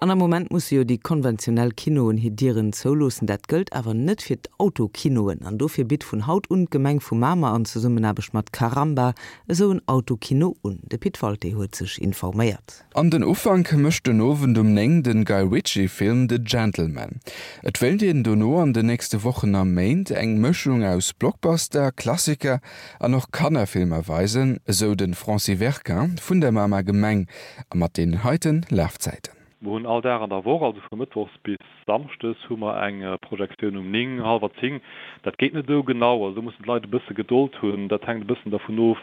An am Moment musse jo déi konventionell Kinoen hir Dieren zouloossen. Dat gëllt awer net fir d'Autokinoen. An dofir bitt vun haut un d'Gemeng vu Mamer an Zesummenaarbecht mat Caramba esou en Autokino un. De Pit Walté huet sech informéiert. An den Ufank mécht den Owend um 9 den Guy Ritchie Film The Gentlemen. Et wéilt een dono an den nächste Wochen a Méint eng Mëschung aus Blockbuster, Klassiker an och Kannerfilmer weisen, esou de Francis Verquin vun der Mamer Gemeng. A mat deenen heiten Lafzäiten. Mer hunn all Dag an der Woch, also vu mëttwochs bis samschdes, hu mer eng Projektioun um 9, hallwer 10. Dat geet net esou genau, also do mussen d'Leit e bësse Gedold hunn. Dat hänkt e bëssen dervun of,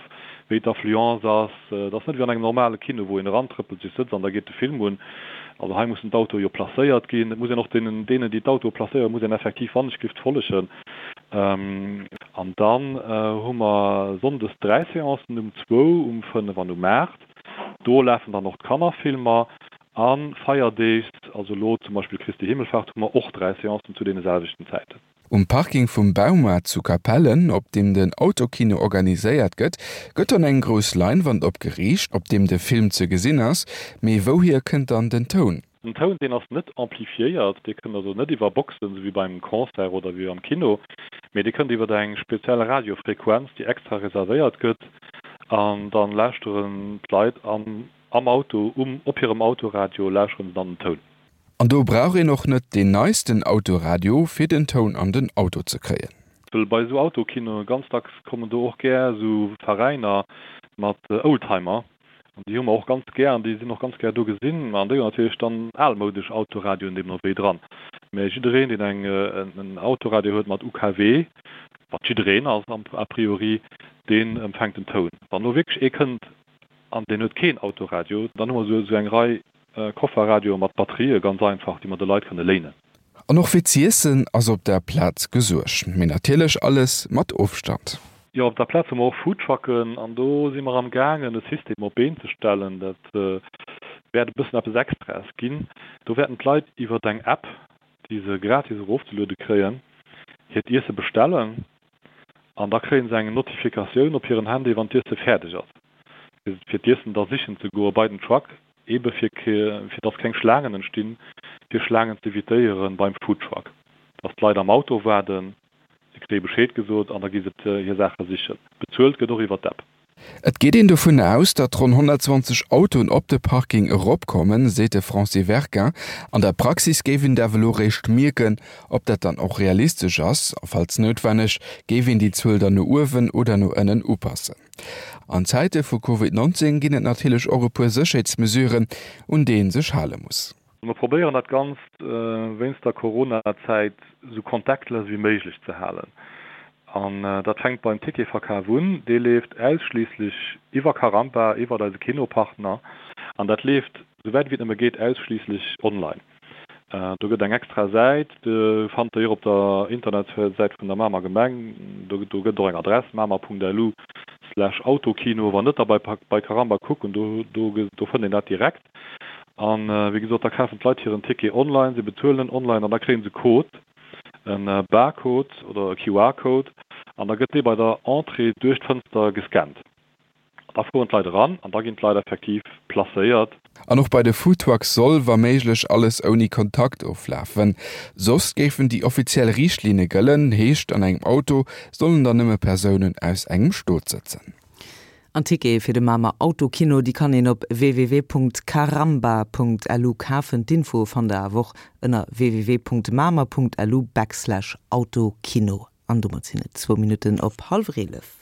wéi d'Affluence ass. Et ass net wéi an engem normale Kino, wou een erantrëppelt, sech sëtzt an da geet de Film un. Also hei mussen d'Autoe jo placéiert ginn. Et muss een och deenen, deenen, déi d'Autoe placéieren, muss een effektiv wannechgelift follegen. An dann hu mer sonndes 3 Seancen, um zwou, um 5 an um 8. Do lafen dann och d'Kannerfilmer. A Feierdeegs, also elo zum Beispill Christi Himmelfahrt, hu mer och 3 Seancen zu deene selwechten Zäiten. Um Parking vum Baumaart zu Capellen, op deem den Autokino organiséiert gëtt, gëtt dann eng grouss Leinwand opgeriicht, op deem de Film ze gesinn ass. Mee wouhier kënnt dann den Toun? Den Toun, deen ass net amplifiéiert, dee kënnt also net iwwer Boxen, esou wéi beim Concert oder wéi am Kino, mee dee kënnt iwwer eng speziell Radiofrequenz, déi extra reservéiert gëtt, an dann lauschteren d'Leit am am Auto, um op hirem Autoradio lauschteren se dann den Toun. An do brauch een och net deen neisten Autoradio, fir den Toun an den Auto ze kréien. Well bei esou Autokinoe ganz dacks kommen do och gär esou Veräiner mat Oldtimer, An déi hu mer och ganz gär an déi sinn och ganz gär do gesinn. An déi hunn natierlech dann almoudesch Autoradioen deemno wéi dran. Mä jiddereen, deen eng en Autoradio huet mat UKW, wat jiddereen ass a priori, deen empfänkt den Toun. Wann elo wierklech ee kënnt an deen huet keen Autoradio, dann hu mer esou eng Rei Kofferradioe mat Batterië ganz einfach, déi mer de Leit kënne léinen. An och fir z'iessen ass op der Plaz gesuergt, mee natierlech alles mat Ofstand. Jo, op der Plaz hu mer och Foodtrucken an do si mer am gaangen e System op d'Been ze stellen. Dat wäert e bëssen eppes Extraes ginn. Do wäerten d'Leit iwwer eng App, déi se gratis erofzeluede kréien, hiert Iesse bestellen an da kréie se eng Notifikatioun op hiren Handy, wann d'Iesse fäerdeg ass, fir d'Iessen da sichen ze goe bei den Truck, ebe fir fir dass keng Schlaangen entstinn, fir Schlaangen z'evitéiere beim Foodtruck, dass d'Leit am Auto waarden. Se kréie Bescheed gesot an da gi se hir Saache sichen. Bezuelt gëtt och iwwer d'App. Et geet een dovun aus, datt ronn 120 Autoen op de Parking eropkommen, seet de Francis Verquin. An der Praxis géif een et awer elo réischt mierken, ob dat dann och realistesch ass. A falls noutwenneg, géif een déi Zuel dann no uewen oder no ënnen upassen. An Zäite vu Covid 19 ginn et natierlech och e puer Sécherheetsmesuren, un déi ee sech hale muss. Mer probéieren dat Ganzt wéinst der Corona-Zäit esou contactless wéi méiglech ze halen. An dat fänkt beim Ticketverkaf un. Dee leeft ausschliisslech iwwer Carampa, iwwert eise Kinopartner. An dat leeft, esouwäit wéi et nëmme geet, ausschliisslech online. Do gëtt eng extra Säit, déi fannt der jo op der Internetsäit vun der Mamer Gemeng. Do gëtt et och eng Adress, mamer.lu slash autokino. Wann net, da bei Caramba kucken, do fënnt een dat direkt. An wéi gesot, da kafen d'Leit hiren Ticket online, se bezuelen en online an da kréie se e Code, e Barcode oder e QR-Code an da gëtt dee bei der Entrée duerch d'Fënster gescannt. An da fueren d'Leit eran an da ginn d'Leit effektiv placéiert. An och bei de Foodtrucks soll, wa méiglech, alles ouni Kontakt oflafen. Soss géifen déi offiziell Riichtlinne gëllen, heescht an engem Auto sollen dann nëmme Persounen aus engem Stot sëtzen. An Tickete fir de Mamer Autokino, déi kann een op www.caramba.lu kafen. D'Infoe fannt der awer och ënner www.mamer.lu backslash autokino. An domat sinn et zwou Minutten op hallwer 11.